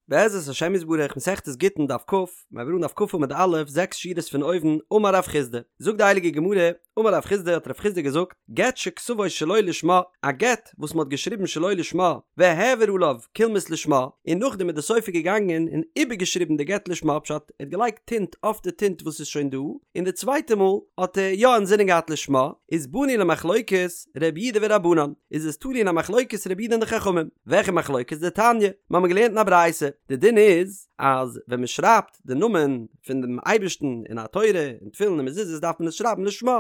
בעזרת השם יתברך מסכת גיטין דף כ, מיר הייבן אן דף כ עמוד א', זעקס שורות פון אויבן, אמר רב חסדא, זאגט די הייליגע גמרא, אמר רב חסדא האט רב חסדא געזאגט, גט שכתבו שלא לשמה, א גט וואס מען האט געשריבן שלא לשמה, והעביר עליו קולמוס לשמה, און נאכדעם איז די סופר געגאנגען און איבערגעשריבן די גט לשמה, פשט, ער האט געלייגט טינט אויף די טינט וואס איז שוין דא, און די צווייטע מאל האט ער יא אינזינען געהאט לשמה, איז באנו למחלוקת רבי יהודה ורבנן, איז עס תלוי אין א מחלוקת רבי יהודה און די חכמים. וועלכע מחלוקת? דתניא, מיר האבן געלערנט אין א ברייתא, די דין איז אז ווען מען שרייבט די נאמען פון דעם אייבערשטן אין א תורה, אין תפילין און מזוזות דארף מען עס שרייבן לשמה,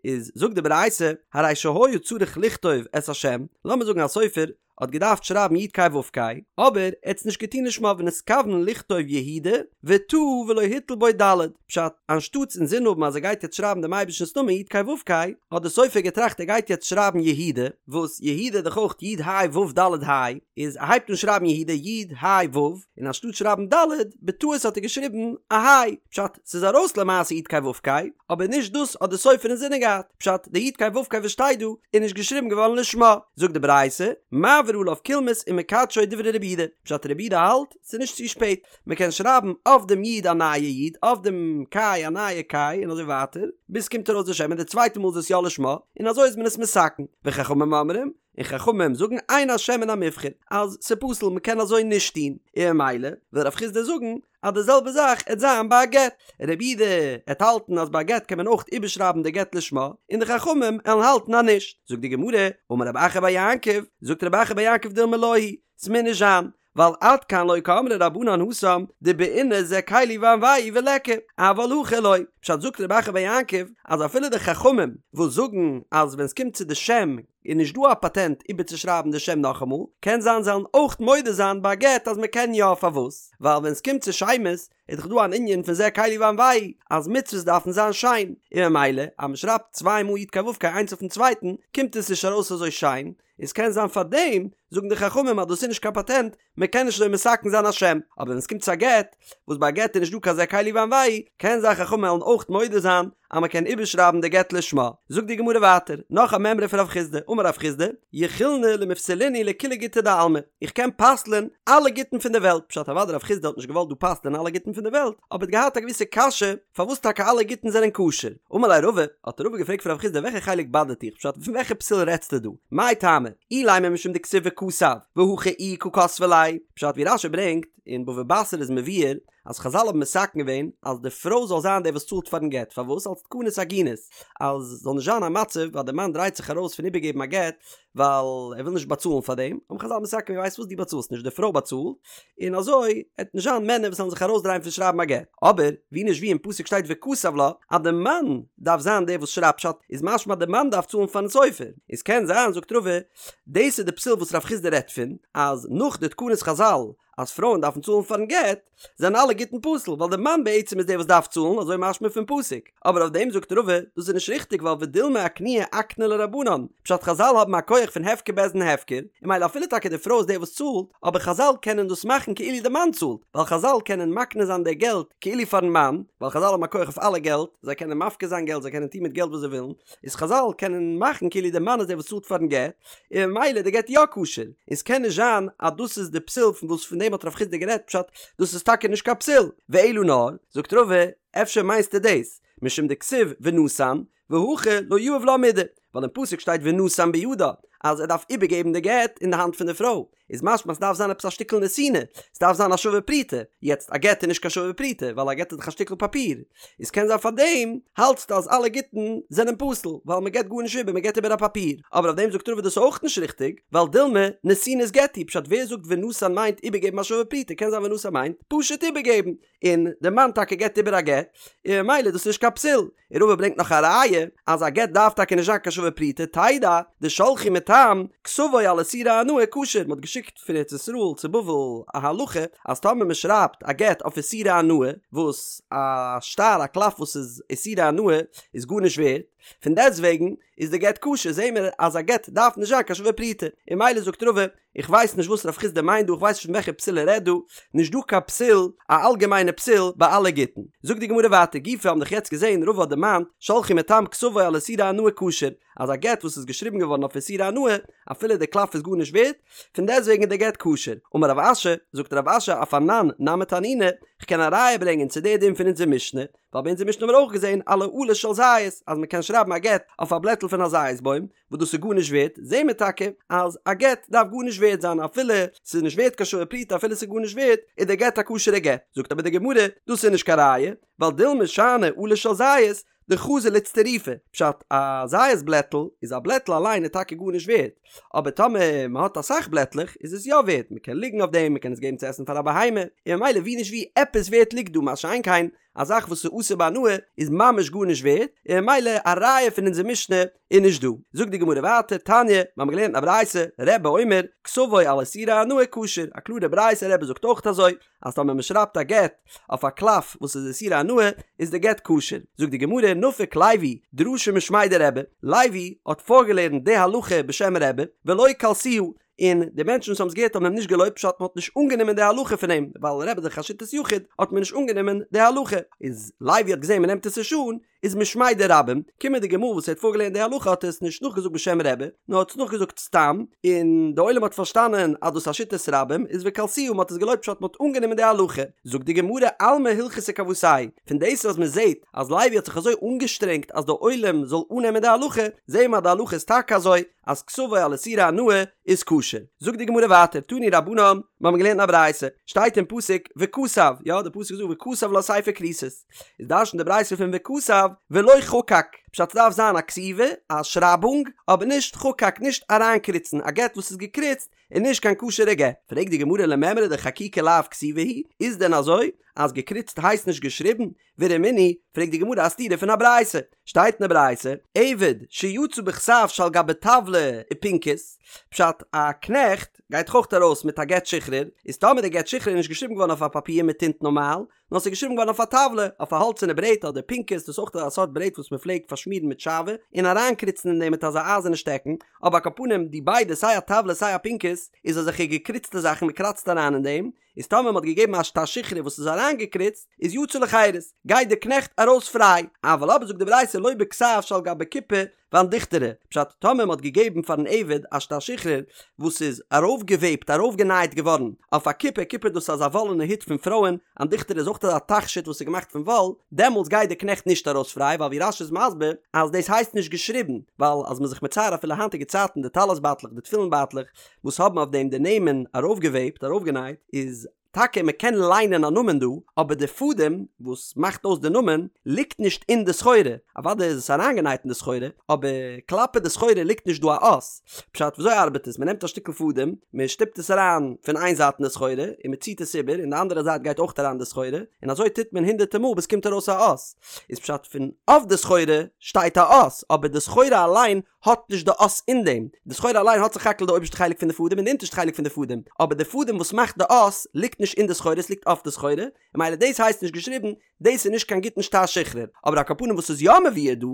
איז זאגט די ברייתא, הרי שהיה צריך לכתוב את השם, לאמיר זאגן א סופר האט געדארפט שרייבן י' ק' ו' ק', אבער ער האט עס נישט געטון לשמה ונתכוון לכתוב יהודה, וטעה ולא הטיל בו ד', פשט, אנשטאטס אינזין האבן אז ער גייט יעצט שרייבן דעם אייבערשטנ'ס נאמען י' ק' ו' ק', האט דער סופר געטראכט ער גייט יעצט שרייבן יהודה, וואס יהודה איז דאך אויך י' ה' ו' ד' ה', איז ער הייבט אן שרייבן יהודה י' ה' ו', און אנשטאט שרייבן ד', בטעות האט ער געשריבן א ה', פשט, ס'איז ארויס למעשה י' ק' ו' ק', אבער נישט דאס האט דער סופר אינזינען געהאט, פשט, די י' ק' ו' ק' וואס שטייט דא, איז נישט געשריבן געווארן לשמה. זאגט די ברייתא, מעביר עליו קולמוס ומקדשו דברי רבי יהודה, פשט רבי יהודה האלט, ס'איז נישט צו שפעט, מען קען שרייבן אויף דעם י' א נייע י', אויף דעם ק' א נייע ק', און אזוי ווייטער, ביז ס'קומט ארויס די שם, און די צווייטע מאל איז עס יא לשמה, און אזוי איז מען עס מתקן. וחכמים אומרים, און חכמים זאגן אין השם מן המובחר, אז ס'פסול, מען קען אזוי נישט טון, און ממילא וויל רב חסדא זאגן אז די זעלבע זאך עט זיין ביי א גט, רבי יהודה עט האלטן אז ביי א גט קען מען אויך איבערשרייבן די גט לשמה, און די חכמים עלן האלטן אז נישט. זאגט די גמרא, אמר רב אחא בר יעקב, זאגט רב אחא בר יעקב דילמא לא היא, ס'מוז נישט זיין, ווייל עד כאן לא קאמרי רבנן התם דבעינא זה קלי ואנוהו וליכא, אבל הכא לא. פשט זאגט רב אחא בר יעקב אז אפילו די חכמים וואס זאגן אז ווען סקומט צו די שם איז נישט דא א פאטענט איבערצושרייבן די שם נאכאמאל, קען זיין זיי וועלן אויך מודה זיין ביי א גט אז מקען יא פארוואס? ווייל ווען סקומט צו שמות איז דאך דא אן ענין פון זה קלי ואנוהו אז מצוות דארפן זיין שיין, און ממילא אז משרייבט צוויי מאל י' ק' ו' ק' איינס אויפן צווייטן קומט עס נישט ארויס אזוי שיין, און ס'קען זיין פאר דעם זאגן די חכמים אז דאס איז נישט קיין פאטענט, מען קען נישט אזוי מתקן זיין א שם, אבער ווען ס'קומט צו א גט, וואס ביי א גט איז נישט דא קיין זה קלי ואנוהו, קען זיין חכמים וועלן אויך מודה זיין אז מען קען איבערשרייבן די גט לשמה. זאגט די גמרא ווייטער, נאך א מימרא פון רב חסדא, אמר רב חסדא, יכילנא למפסלינהו לכולהו גיטי דעלמא, איך קען פסל'ען אלע גיטין פון די וועלט, פשט אוודאי רב חסדא האט נישט געוואלט דא פסל'ען אלע גיטין פון די וועלט, אבער האט געהאט א געוויסע קשיא, פארוואס טאקע אלע גיטין זענען כשר? אמר ליה רבא, האט רבא געפרעגט פון רב חסדא וועלכע חלק באדערט דיך, פשט פון וועלכע פסול רעדסטו דא? מאי טעמא? אילימא משום דכתיב וכתב, והכא איהי קא כתבה ליה, פשט ווי רש"י ברענגט אין בבא בתרא איז מבואר אז חזל האבן מתקן געווען אז די פרוי זאל זיין די וואס צאלט פארן גט, פארוואס? אלס תקנת עגונות, אז זאל נישט זיין א מצב אז די מאן דרייט זיך ארויס פון איבערגעבן א גט ווייל ער וויל נישט באצאלן פאר דעם, האבן חזל מתקן געווען ווייסט וואס דו באצאלסט נישט די פרוי באצאלט, און אזוי עט נישט זיין מענער וואס וועלן זיך ארויסדרייען פון שרייבן א גט, אבער ווי נישט ווי אין פסוק שטייט וכתב לה אז די מאן דארף זיין דער וואס שרייבט פשט איז משמע די מאן דארף צאלן פארן סופר, איז קען זיין זאגט רבא דאס איז די פסול וואס רב חסדא רעדט פון אז נאך די תקנות חזל אז פרויען דארפן צאלן פארן גט זענען אלע גיטין פסול ווייל די מאן בעצם איז דער וואס דארף צאלן אזוי משמע פון פסוק, אבער אויף דעם זאגט רבא דאס איז נישט ריכטיג ווייל ודילמא אקנויי אקנו לה רבנן, פשט חזל האבן א כח פון הפקר בית דין הפקר, און ממילא אפילו טאקע די פרוי איז דער וואס צאלט, אבער חזל קענען דאס מאכן כאילו די מאן צאלט, ווייל חזל קענען מקנה זיין די געלט כאילו פארן מאן, ווייל חזל האבן א כח אויף אלע געלט, זיי קענען מפקיר זיין געלט זיי קענען טון מיט געלט וואס זיי ווילן, איז חזל קענען מאכן כאילו די מאן איז דער וואס צאלט פארן גט, און ממילא די גט יא כשר, און ס'קען נישט זיין אז דאס איז די פסול פון וואס פון דעם האט רב חסדא גערעדט פשט דאס איז טאקע נישט קיין פסול, ואלא נאר, זאגט רבא, אפשר מיינסטו דאס, משום דכתיב ונתן, והכא לא יהיב לה מידי, ווייל אין פסוק שטייט ונתן בידה, אז ער דארף איבערגעבן די גט אין די האנט פון די פרוי, איז משמע ס'דארף זיין עפעס א שטיקל נתינה, ס'דארף זיין א שווה פרוטה, יעצט א גט איז נישט קיין שווה פרוטה, ווייל א גט איז דאך א שטיקל פאפיר, איז קען זיין פארדעם האלטסטו אז אלע גיטין זענען פסול, ווייל מ'געט גארנישט איבער, מ'געט איבער א פאפיר, אבער אויף דעם זאגט רבא דאס איז אויך נישט ריכטיג, ווייל דילמא נתינת גט היא, פשט ווער זאגט ונתן מיינט איבערגעבן א שווה פרוטה, קען זיין ונתן מיינט פשוט איבערגעבן, און די מאן טאקע געבט איבער א גט, און ממילא איז דאס נישט קיין פסול. און רבא ברענגט נאך א ראיה אז א גט דארף טאקע נישט זיין קיין שווה פרוטה, תדע דשלחו מתם כתבו על איסורי הנאה כשר, מען האט געשיקט פון ארץ ישראל צו בבל א הלכה אז טאמער מען שרייבט א גט אויף איסורי הנאה, וואס א שטר א קלף וואס איז איסורי הנאה איז גארנישט ווערט. פון דעסטוועגן איז די גט כשר, זעהן מיר אז א גט דארף נישט זיין קיין שווה פרוטה, און ממילא זאגט רבא, איך ווייס נישט וואס רב חסדא מיינט דא, איך ווייס נישט פון וועלכע פסול ער רעדט דא, נישט דא קיין פסול, א אלגעמיינע פסול ביי אלע גיטין. זאגט די גמרא ווייטער, גופא האבן דאך יעצט געזעהן רבא האט דערמאנט, שלחו מתם כתבו על איסורי הנאה כשר, אז א גט וואס איז געשריבן געווארן אויף איסורי הנאה, אפילו די קלף איז גארנישט ווערט, פון דעסטוועגן איז די גט כשר. אמר רב אשי, זאגט רב אשי אף אנן נמי תנינא, כ'קען א ראיה ברענגען צו די דין פון אונזער משנה, ווייל ביי אונזער משנה האבן מיר אויך געזען על העלה של זית אז מען קען שרייבן א גט אויף א בלעטל פון א זית בוים וואס דאס איז גארנישט ווערט, זעהן מיר טאקע אז א גט דארף גארנישט ווערט זיין אפילו ס'איז נישט ווערט קיין שווה פרוטה אפילו ס'איז גארנישט ווערט איז דער גט א כשר'ע גט, זאגט אבער די גמרא דאס איז נישט קיין ראיה ווייל דילמא שאני עלה של זית דחזי לאיצטרופי, פשט א זית בלעטל איז א בלעטל אליין איז טאקע גארנישט ווערט, אבער טאמער מען האט אסאך בלעטלעך איז עס יא ווערט, מען קען ליגן אויף דעם, מען קען עס געבן צו עסן פאר א בהמה, און ממילא ווי נישט ווי עפעס ווערט ליגט דא, מה שאין כן א זאך וואס איז אסור בהנאה איז ממש גארנישט ווערט, און ממילא א ראיה פון אונזער משנה איז נישט דא. זאגט די גמרא ווייטער, תניא, מיר האבן געלערנט א ברייתא, רבי אומר, כתבו על איסורי הנאה כשר, א קלארע ברייתא, רבי זאגט אויך אזוי, אז טאמער מען שרייבט א גט אויף א קלף וואס איז איסורי הנאה איז די גט כשר. זאגט די גמרא, נפק לוי דרשה משמיה דרבי, לוי האט פארגעלערנט די הלכה בשם רבי, ולא קלסוה, און די מענטשן וואס האבן עס געהערט האבן אים נישט געלויבט פשט מען האט נישט אנגענומען די הלכה פון אים, ווייל רבי איז דאך א שיטת יחיד האט מען נישט אנגענומען די הלכה, איז לוי האט געזען מען נעמט עס נישט אן, איז משמיה דרבים, קומענדיגע מאל וואס ער האט פארגעלערנט די הלכה האט ער עס נישט נאכגעזאגט בשם רבי, נאר האט עס נאכגעזאגט סתם, און די עולם האט פארשטאנען אז דאס איז א שיטת רבים, איז וקלסוה מען האט עס געלויבט פשט מען האט אנגענומען די הלכה. זאגט די גמרא אלמא הלכתא כוותיה פון דאס אז מען זעט אז לוי האט זיך אזוי אנגעשטרענגט אז די עולם זאל אננעמען די הלכה, זעהן מיר אז די הלכה איז טאקע אזוי, אז כתבו על איסורי הנאה איז כשר. זאגט די גמרא ווייטער, תנו רבנן, מיר האבן געלערנט אין א ברייתא, שטייט אין פסוק וכתב, יא די פסוק זאגט וכתב לה ספר כריתות, איז דרש'נט די ברייתא פון וכתב ולא חקק, פשט ס'דארף זיין א כתיבה, א שרייבונג, אבער נישט חקק, נישט אריינקריצן, א גט וואס איז געקריצט איז נישט קיין כשר'ע גט. פרעגט די גמרא למימרא דחקיקה לאו כתיבה היא, איז דען אזוי אז געקריצט הייסט נישט געשריבן? ורמינהי, פרעגט די גמרא א סתירה פון א ברייתא, שטייט אין די ברייתא, עבד שיצא בכתב שעל גבי טבלא ופנקס, פשט א קנעכט גייט דאך אויך ארויס מיט א גט שחרור, איז טאמער די גט שחרור איז נישט געשריבן געווארן אויף א פאפיר מיט טינט נארמאל, נאר ס'איז געשריבן געווארן אויף א טבלא, אויף א האלצערנע ברעט אדער פנקס, דאס איז אויך א סארט ברעט וואס מען פלעגט פארשמירן מיט שעוה, און אריינקריצן אין דעם מיט אזא אייזערנע שטעקן, אבער על כל פנים די ביידע סיי א טבלא סיי א פנקס איז אזעלכע געקריצטע זאכן מען קראצט אריין אין דעם, איז טאמער מ'האט געגעבן א שטר שחרור וואס איז אריינגעקריצט, איז יצא לחירות, גייט דער קנעכט ארויס פריי, אבל אבער זאגט די ברייתא לא בכתב שעל גבי כיפה ואנדיכטרא, פשט, טאמער מ'האט געגעבן פארן עבד א שטר שחרור וואס איז ארויפגעוועבט, ארויפגענייט געווארן, אויף א כיפה, כיפה דאס איז אזא וואלענע הוט פון פרויען, אנדיכטרא איז אויך אזא תכשיט וואס איז געמאכט פון וואל, דעמאלטס גייט דער קנעכט נישט ארויס פריי, ווייל ווי רש"י איז מסביר אז דאס הייסט נישט געשריבן, ווייל אז מ'איז זיך מצייר אפילו היינטיגע צייטן די טלית בייטלעך די תפילין בייטלעך, וואס האבן אויף דעם די נעמען ארויפגעוועבט, ארויפגענייט, איז טאקע מען קען ליינען א נאמען דא, אבער די פאדעם וואס מאכט אויס די נאמען ליגט נישט אין די סחורה, אוודאי איז עס אריינגענייט אין די סחורה, אבער כלפי די סחורה ליגט נישט דא א אות. פשט, וויאזוי ארבעט עס? מען נעמט א שטיקל פאדעם, מען שטופט עס אריין פון איין זייט אין די סחורה, און מען ציט עס איבער, און די אנדערע זייט גייט אויך אריין אין די סחורה, און אזוי טוט מען הונדערטער מאל ביז ס'קומט ארויס א אות. איז פשט, פון אויף די סחורה שטייט א אות, אבער די סחורה אליין האט נישט די אות אין דעם, די סחורה אליין האט סך הכל די אויבערשטע חלק פון די פאדעם און די אונטערשטע חלק פון די פאדעם, אבער די פאדעם וואס מאכט די אות ליגט נישט אין די סחורה עס ליגט אויף די סחורה, און ממילא דאס הייסט נישט געשריבן, דאס איז נישט קיין גוטן שטר שחרור, אבער על כל פנים וואס איז יא מבואר דא,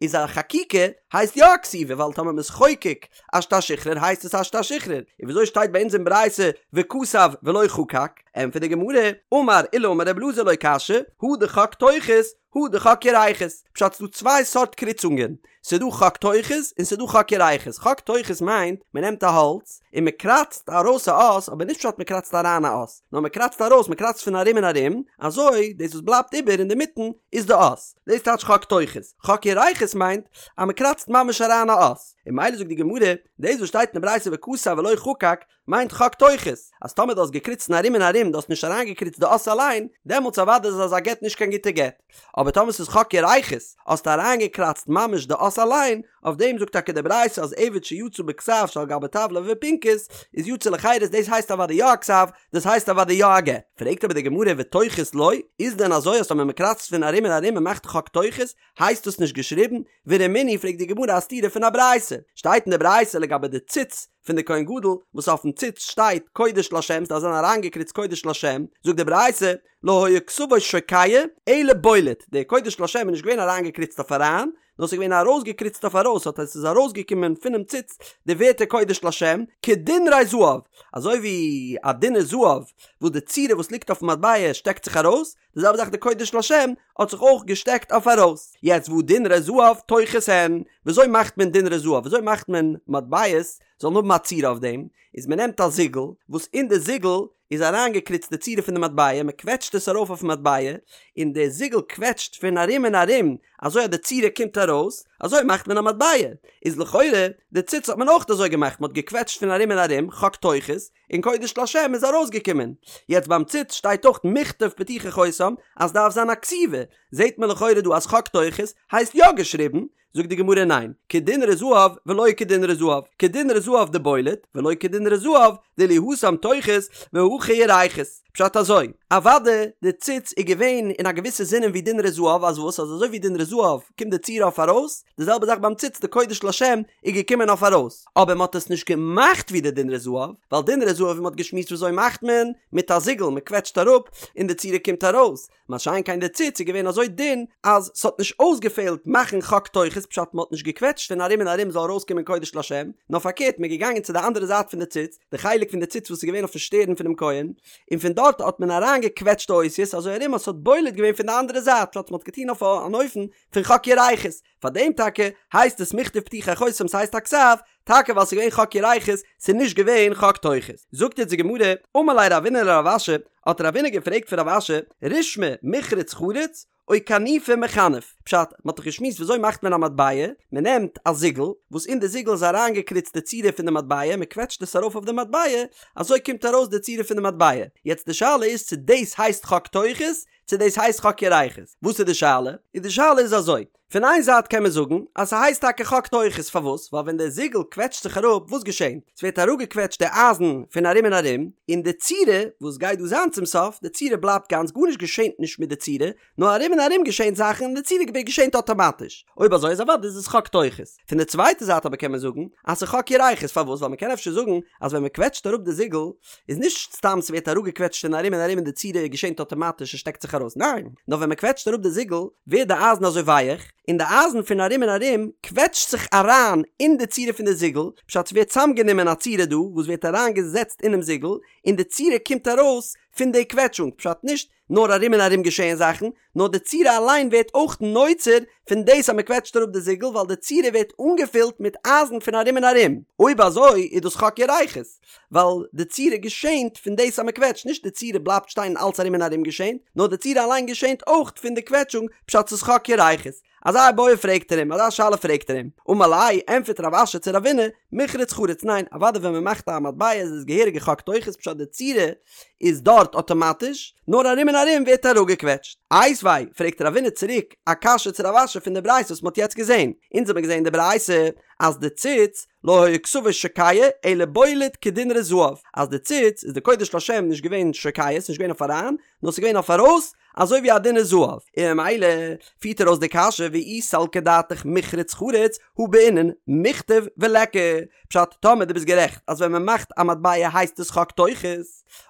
איז א חקיקה הייסט יא א כתיבה ווייל טאמער מ'איז חוקק א שטר שחרור הייסט עס א שטר שחרור, און וויאזוי שטייט ביי אונז אין ברייתא וכתב ולא חקק? ענטפערט די גמרא, אמר עולא אמר רבי אלעזר לא קשיא, הא דחק תוכות, הא דחק ירכות, פשט ס'דא צוויי סארט קריצונגען, ס'דא חק תוכות און ס'דא חק ירכות, חק תוכות מיינט מ'נעמט א האלץ און מ'קראצט ארויס א אות, אבער נישט פשט מ'קראצט אריין א אות, נאר מ'קראצט ארויס, מ'קראצט פון ארום און ארום, אזוי דאס וואס בלייבט איבער אינדערמיטן איז די אות, דאס טייטש חק תוכות, חק ירכות מיינט אז מ'קראצט ממש אריין א אות, און ממילא זאגט די גמרא, דאס וואס שטייט אין די ברייתא וכתב ולא חקק, מיינט חק תוכות, אז טאמער דו האסט געקריצט אין ארום און ארום, דו האסט נישט אריינגעקריצט די אות אליין, דעמאלטס אוודאי איז אזא גט נישט קיין גוטע גט. אבער טאמער ס'איז חק ירכות, האסטו אריינגעקראצט ממש די אות אליין, אויף דעם זאגט טאקע די ברייתא אז עבד שיצא בכתב שעל גבי טבלא ופנקס, איז יצא לחירות דאס הייסט אוודאי יא א כתב, דאס הייסט אוודאי יא א גט. פרעגט אבער די גמרא ותוכות לא, איז דען אזוי אז טאמער מ'קראצט פון ארום און ארום און מאכט חק תוכות, הייסט דאס נישט געשריבן? ורמינהי פרעגט די גמרא א סתירה פון א ברייתא, שטייט אין די ברייתא לגבי די ציץ פון די כהן גדול וואס אויפן ציץ שטייט קודש לשם ס'דארף זיין אריינגעקריצט קודש לשם, זאגט די ברייתא לא היה כתבו שוקע אלא בולט, די קודש לשם איז נישט געווען אריינגעקריצט אויף אריין, נאר ס'איז געווען ארויסגעקריצט אויף ארויס האט עס איז ארויסגעקומען פונעם ציץ די ווערטער קודש לשם, כדינרי זהב, אזוי ווי א דינר זהב וואס די צורה וואס ליגט אויפן מטבע שטעקט זיך ארויס, די זעלבע זאך די קודש לשם האט זיך אויך געשטעקט אויף ארויס. יעצט והא דינרי זהב טוחות הן, וויאזוי מאכט מען דינרי זהב? וויאזוי מאכט מען מטבעות זאלן האבן א צורה אויף דעם? איז מען נעמט א זיגל וואס אין די זיגל איז אריינגעקריצט די צורה פון די מטבע, מען קוועטשט עס ארויף אויפן מטבע, און די זיגל קוועטשט פון ארום און ארום אזוי אז די צורה קומט ארויס, אזוי מאכט מען א מטבע. איז לכאורה די ציץ האט מען אויך אזוי געמאכט, מען האט געקוועטשט פון ארום און ארום, חק טוחות, און קודש לשם איז ארויסגעקומען. יעצט ביים ציץ שטייט אויך מכתב פתוחי חותם אז סדארף זיין א כתיבה, זעהט מען לכאורה דא אז חק טוחות הייסט יא געשריבן, זאגט די גמרא ניין, כדינרי זהב ולא כדינרי זהב, כדינרי זהב דבולט, ולא כדינרי זהב דאילו התם טוחות והכא ירכות. פשט אזוי, אוואדע די ציץ איז געווען אין א געוויסע זינען ווי דינרי זהב אז וואס אז אזוי ווי דינרי זהב קומט די צורה אויף ארויס, די זעלבע זאך ביים ציץ די קודש לשם איז געקומען אויף ארויס, אבער מען האט עס נישט געמאכט ווי די דינרי זהב, ווייל דינרי זהב ווי מען האט געשמועסט וויאזוי מאכט מען, מיט א זיגל, מען קוועטשט אראפ און די צורה קומט ארויס, מה שאין כן די ציץ איז געווען אזוי דין אז ס'האט נישט אויסגעפעלט מאכן חק טוחות פשט מען האט נישט געקוועטשט פון ארום און ארום זאל ארויסקומען קודש לשם, נאר פארקערט מען איז געגאנגען צו די אנדערע זייט פון די ציץ, די חלק פון די ציץ וואס איז געווען אויפן שטערן פונעם כהן, און פון דארט האט מען אריינגעקוועטשט די אותיות אזוי ארום אז ס'האט בולט געווען פון די אנדערע זייט פשט מען האט געטון אויף אן אופן פון חק ירכות, פאר דעם טאקע הייסט עס מכתב פתוחי חותם ס'הייסט א כתב, טאקע ווייל ס'איז געווען חק ירכות, ס'איז נישט געווען חק טוחות. זאגט יעצט די גמרא, אמר ליה רבינא לרב אשי, האט רבינא געפרעגט פון רב אשי, רישמא מיחרץ חריץ, או כנופי מכנף, פשט, מ'האט דאך געשמועסט וויאזוי מאכט מען א מטבע, מ'נעמט א זיגל, וואס אין די זיגל איז אריינגעקריצט די צורה פון די מטבע, מ'קוועטשט עס ארויף אויף די מטבע, אזוי קומט ארויס די צורה פון די מטבע. יעצט די שאלה איז צו דאס הייסט חק טוחות, צו דאס הייסט חק ירכות. וואס איז די שאלה? איז די שאלה איז אזוי, פון איין זייט קען מען זאגן אז ס'הייסט טאקע חק טוחות, פארוואס? ווייל ווען דער זיגל קוועטשט זיך אראפ, וואס געשענט? ס'ווערט אראפגעקוועטשט די אייזן פון ארום און ארום, און די צורה וואס גייט דא זיין צום סוף, די צורה בלייבט גאנץ, גארנישט געשענט נישט מיט די צורה, נאר ארום און ארום געשענט זאכן און די צורה געשענט אטאמאטיש. אויב אזוי איז אוודאי איז עס חק טוחות. פון די צווייטע זייט אבער קען מען זאגן אז ס'איז חק ירכות, פארוואס? ווייל מ'קען אפשר זאגן אז ווען מ'קוועטשט אראפ די זיגל, איז נישט סתם ס'ווערט אראפגעקוועטשט פון ארום און ארום און די צורה געשענט אטאמאטיש און שטעקט זיך ארויס, ניין, נאר ווען מ'קוועטשט אראפ די זיגל ווערט די אייזן אזוי ווייעך, און די אייזן פון ארום און ארום קוועטשט זיך אריין אין די צורה פון די זיגל, פשט ס'ווערט צאמגענומען א צורה דא וואס ווערט אריינגעזעצט אינעם זיגל, און די צורה קומט ארויס פון די קוועטשונג, פשט נישט נאר ארום און ארום געשעהן זאכן, נאר די צורה אליין ווערט אויך נוצר פון דאס אז מען קוועטשט אראפ די זיגל ווייל די צורה ווערט אנגעפילט מיט אייזן פון ארום און ארום, אויב אזוי איז דאס חק ירכות, ווייל די צורה געשענט פון דאס אז מען קוועטשט, נישט די צורה בלייבט שטיין און אלץ ארום און ארום געשענט, נאר די צורה אליין געשענט אויך פון די קוועטשונג, פשט ס'איז חק ירכות. אזא איבעיא פרעגט ער אים, אזא שאלה פרעגט ער אים, אמר ליה, ענטפערט רב אשי צו רבינא, מיחרץ חריץ, ניין, אוודאי ווען מען מאכט א מטבע איז עס געהעריגע חק טוחות פשט די צורה איז דארט אטאמאטיש, נאר ארום און ארום ווערט אראפגעקוועטשט. איתיביה, פרעגט רבינא צוריק א קשיא צו רב אשי פון די ברייתא וואס מען האט יעצט געזען, אונז האבן געזען די ברייתא אז די ציץ לא היה כתבו שוקע אלא בולט כדינרי זהב, אז די ציץ איז די קודש לשם נישט געווען שוקע, ס'איז נישט געווען אויף אריין, נאר ס'איז געווען אויף ארויס, אזוי ווי א דינר זהב, און ממילא פירט ער אויס די קשיא ואי סלקא דעתך מיחרץ חריץ הא בעינן מיכתב וליכא, פשט טאמער דו ביסט גערעכט אז ווען מען מאכט א מטבע הייסט עס חק טוחות,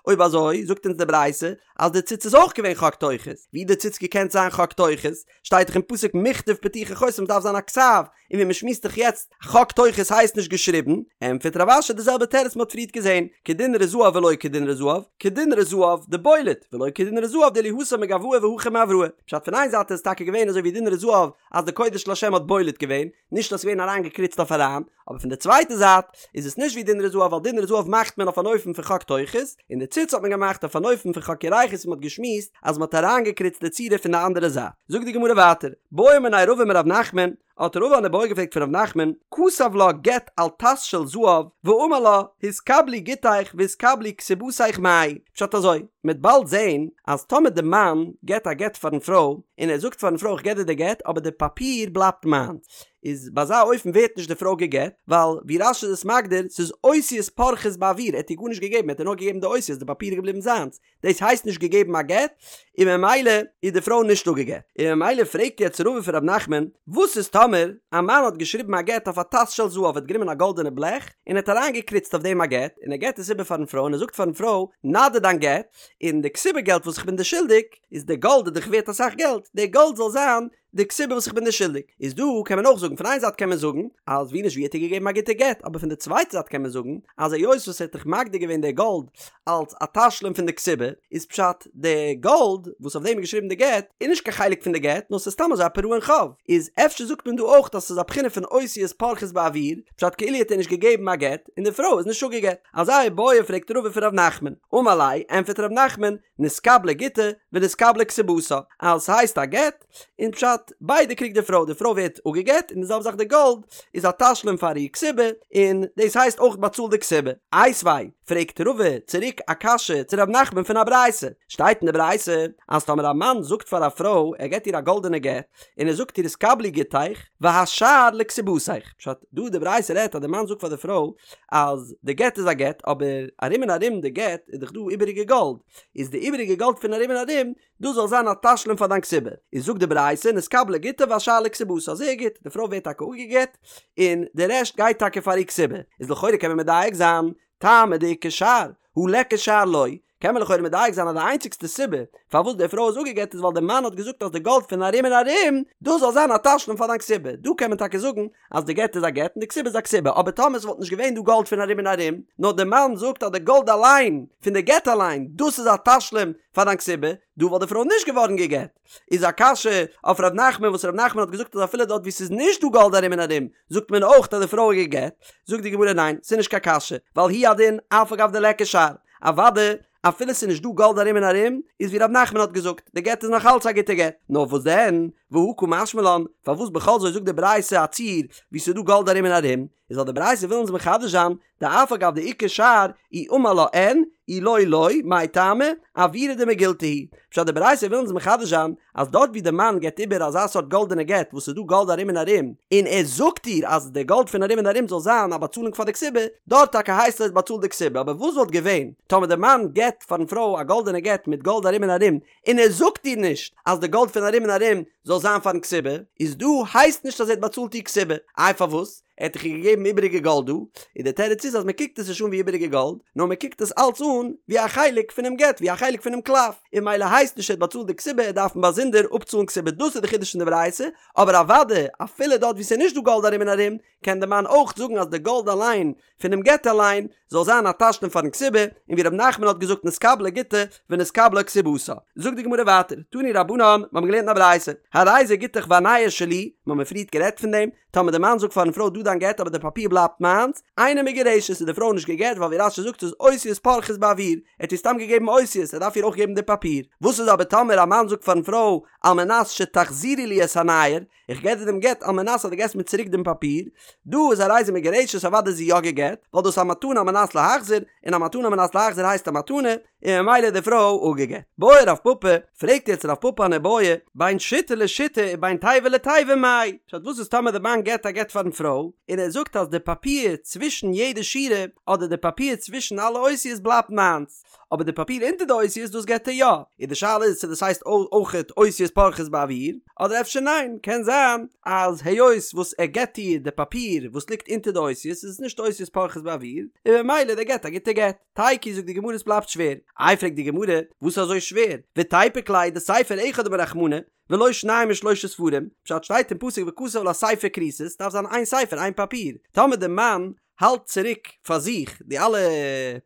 אויב אזוי זאגט אונז די ברייתא אז די ציץ איז אויך געווען חק טוחות, ווי די ציץ געקענט זיין חק טוחות? שטייט דאך אין פסוק מכתב פתוחי חותם ס'דארף זיין א כתב, און ווי מ'שמועסט דאך יעצט, חק טוחות הייסט נישט געשריבן, ענטפערט רב אשי די זעלבע תירוץ מ'האט פריערט געזען, כדינרי זהב ולא כדינרי זהב, כדינרי זהב דבולט, ולא כדינרי זהב דאילו התם מגואי והכא מאבראי. פשט פון איין זייט איז עס טאקע געווען אזוי ווי דינרי זהב אז די קודש לשם האט בולט געווען, נישט אז ס'איז געווען אריינגעקריצט אויף אריין, אבער פון די צווייטע זייט איז עס נישט ווי דינרי זהב ווייל דינרי זהב מאכט מען אויף אן אופן פון חק טוחות, און די ציץ האט מען געמאכט אויף אן אופן פון חק ירכות ווי מ'האט געשמועסט אז מ'האט אריינגעקריצט די צורה פון די אנדערע זייט. זאגט די גמרא ווייטער, בעא מיניה רבא מרב נחמן, האט רבא אן איבעיא געפרעגט פון ר' נחמן, כתב לה גט על טס של זהב, ואמר לה, התקבלי גיטיך והתקבלי כתובתיך מאי, פשט אזוי, מ'עט באלד זעהן אז טאמער די מאן געט א גט פארן פרוי, און ער זאגט פארן פרוי איך געב דיר די גט אבער די פאפיר בלייבט מיינס, איז ביי אזא אופן ווערט נישט די פרוי גע'גט, ווייל ווי רש"י איז עס מגדיר, ס'איז אותיות פורחות באוויר, ער האט איר גארנישט געגעבן, ער האט איר נאר געגעבן די אותיות, די פאפיר איז געבליבן זיינס, דאס הייסט נישט געגעבן א גט, און ממילא איז די פרוי נישט אפגעגט. און ממילא פרעגט יעצט רבא פון ר' נחמן, וואס איז טאמער א מאן האט געשריבן א גט אויף א טס של זהב, ער האט גענומען א גאלדענע בלעך און ער האט אריינגעקריצט אויף דעם א גט, און ער געט עס איבער פארן פרוי און ער זאגט פארן פרוי, נאדיר דיין גט, און די כתובה געלט וואס איך בין דיר שולדיג, איז די גאלד איז דאך ווערט אסאך געלט, די גאלד זאל זיין. די כתובה וואס איך בין דיר שולדיג. איז דא קען מען אויך זאגן, פון איין זייט קען מען זאגן אז ווי נישט ווי האט ער געגעבן א גוטע גט, אבער פון די צווייטע זייט קען מען זאגן אז היות וואס ער האט דאך מגדיר געווען די גאלד אלס א תשלום פון די כתובה, איז פשט די גאלד וואס אויף דעם איז געשריבן די גט איז נישט קיין חלק פון די גט נאר ס'איז סתם אזוי א פירעון חוב, איז אפשר זאגט מען דא אויך אז ס'איז א בחינה פון אותיות פורחות באוויר, פשט כאילו האט ער נישט געגעבן א גט און די פרוי איז נישט אפגעגט. אזא איבעיא פרעגט רבא פון ר' נחמן, אמר ליה, ענטפערט ר' נחמן, נתקבלה גיטה ונתקבלה כתובתה, אז ס'הייסט א גט, און פשט, ביידע קריגט די פרוי, די פרוי ווערט אפגעגט און די זעלבע זאך די גאלד איז א תשלום פאר איר כתובה, און דאס הייסט אויך באצאלט די כתובה. איתיביה, פרעגט רבא צוריק א קשיא צו ר' נחמן פון א ברייתא, שטייט אין די ברייתא אז טאמער א מאן זאגט פאר א פרוי ער געט איר א גאלדענע גט, און ער זאגט איר התקבלי גיטיך והשאר לכתובתיך, פשט, דא די ברייתא רעדט אז די מאן זאגט פאר די פרוי אז די גט איז א גט אבער ארום און ארום די גט איז דאך דא איבעריגע גאלד, איז די איבעריגע גאלד פון ארום און ארום דאס זאל זיין א תשלום פאר דיין כתובה, איז זאגט די ברייתא נתקבלה גיטה והשאר לכתובתה, זייער גוט, די פרוי ווערט טאקע אפגעגט און די רעשט גייט טאקע פאר איר כתובה, איז לכאורה קען מען מדייק זיין, טעמא דאיכא שאר, הא ליכא שאר לא, קען מען לכאורה מדייק זיין אז די איינציגסטע סיבה פארוואס די פרוי איז אפגעגט איז ווייל די מאן האט געזאגט אז די גאלד פון ארום און ארום דאס זאל זיין א תשלום פאר דיין כתובה, דא קען מען טאקע זאגן אז די גט איז א גט און די כתובה איז א כתובה, אבער טאמער עס וואלט נישט געווען דא גאלד פון ארום און ארום, נאר די מאן זאגט אז די גאלד אליין, פון די גט אליין, דאס איז א תשלום פאר דיין כתובה, דא וואלט די פרוי נישט געווארן גע'גט. איז א קשיא אויף ר' נחמן וואס ר' נחמן האט געזאגט אז אפילו דארט וואו ס'איז נישט דא גאלד ארום און ארום זאגט מען אויך אז די פרוי איז גע'גט, זאגט די גמרא ניין ס'איז נישט קיין קשיא ווייל הוא הדין אף על גב דליכא שאר, אוודאי אפילו ס'איז נישט דא גאלד ארום און ארום איז ווי ר' נחמן האט געזאגט די גט איז נאך אלץ א גוטע גט, נאר וואס דען והא קא משמע לן פארוואס בכל זאת זאגט די ברייתא א ציור וואו ס'איז דא גאלד ארום און ארום, איז ווייל די ברייתא וויל אונז מחדש זיין דאף על גב דאיכא שאר אי אמר לה אין אי לא לא מאי טעמא אוירא דמגילתא הוא פשט די ברייתא וויל אונז מחדש זיין אז דארט ווי די מאן געבט איבער אזא סארט גאלדענע גט וואס איז דא גאלד ארום און ארום און ער זאגט איר אז די גאלד פון ארום און ארום זאל זיין א באצאלונג פאר די כתובה דארט טאקע הייסט עס באצאלט די כתובה אבער וואס וואלט געווען טאמער די מאן געבט פארן פרוי א גאלדענע גט מיט גאלד ארום און ארום און ער זאגט איר נישט אז די גאלד פון ארום און ארום זאל זיין פארן כתובה איז דא הייסט נישט אז ער האט באצאלט איר כתובה איי פארוואס ער האט דאך איר געגעבן איבעריגע גאלד דא, און דער תירוץ איז אז מען קוקט עס נישט אן ווי איבעריגע גאלד, נאר מען קוקט עס אלץ אן ווי א חלק פונעם גט, ווי א חלק פונעם קלף, און ממילא הייסט נישט ער האט באצאלט די כתובה, ער דארף באזונדער אפצאלן כתובה, דאס איז די חידוש פון די ברייתא, אבער אוודאי אפילו דארט וואו ס'איז נישט דא גאלד ארום און ארום, קען דער מאן אויך זאגן אז די גאלד אליין פונעם גט אליין זאל זיין א תשלום פארן כתובה, און ווי ר' נחמן האט געזאגט נתקבלה גיטה ונתקבלה כתובתה. זאגט די גמרא ווייטער, תנו רבנן, מיר האבן געלערנט אין א ברייתא, הרי זה גיטך והנייר שלי, מיר האבן פריערט גערעדט פון דעם, טאמער די מאן זאגט פארן פרוי דא דיין גט אבער די פאפיר בלייבט מיינס, אינה מגורשת איז די פרוי נישט גע'גט ווייל ווי רש"י זאגט ס'איז אותיות פורחות באוויר, ער האט איר סתם געגעבן אותיות ער דארף איר אויך געבן די פאפיר. וואס איז אבער טאמער א מאן זאגט פארן פרוי על מנת שתחזירי לי את הנייר, איך געב דיר דעם גט על מנת אז דו געסט מיר צוריק דעם פאפיר, דא איז הרי זו מגורשת אוודאי איז זי יא גע'גט, ווייל דאס איז א מתנה על מנת להחזיר, און א מתנה על מנת להחזיר הייסט א מתנה, און ממילא איז די פרוי אפגע'גט. בעי רב פפא, פרעגט יעצט רב פפא אן איבעיא, בין שיטה לשיטה ובין תיבה לתיבה מאי, פשט וואס איז טאמער די מאן געבט א גט פארן פרוי, און ער זאגט אז די פאפיר צווישן יעדע שורה, אדער די פאפיר צווישן אלע אותיות בלייבט מיינס, אבער די פאפיר אונטער די אותיות דאס געבט ער יא, און די שאלה איז צו דאס הייסט אויכעט אותיות פורחות באוויר, אדער אפשר ניין, קען זיין אז היות וואס ער געבט איר די פאפיר וואס ליגט אונטער די אותיות איז עס נישט אותיות פורחות באוויר, און ממילא דער גט א גוטע גט. תיקו זאגט די גמרא עס בלייבט שווער. איי פרעגט די גמרא, וואס איז אזוי שווער? ותיפוק ליה דספר אחד אמר רחמנא, ולא שניים ושלושה ספרים, פשט שטייט אין פסוק וכתב לה ספר כריתות, דארף זיין איין ספר איין פאפיר, טאמער די מאן האלט צוריק פאר זיך די אלע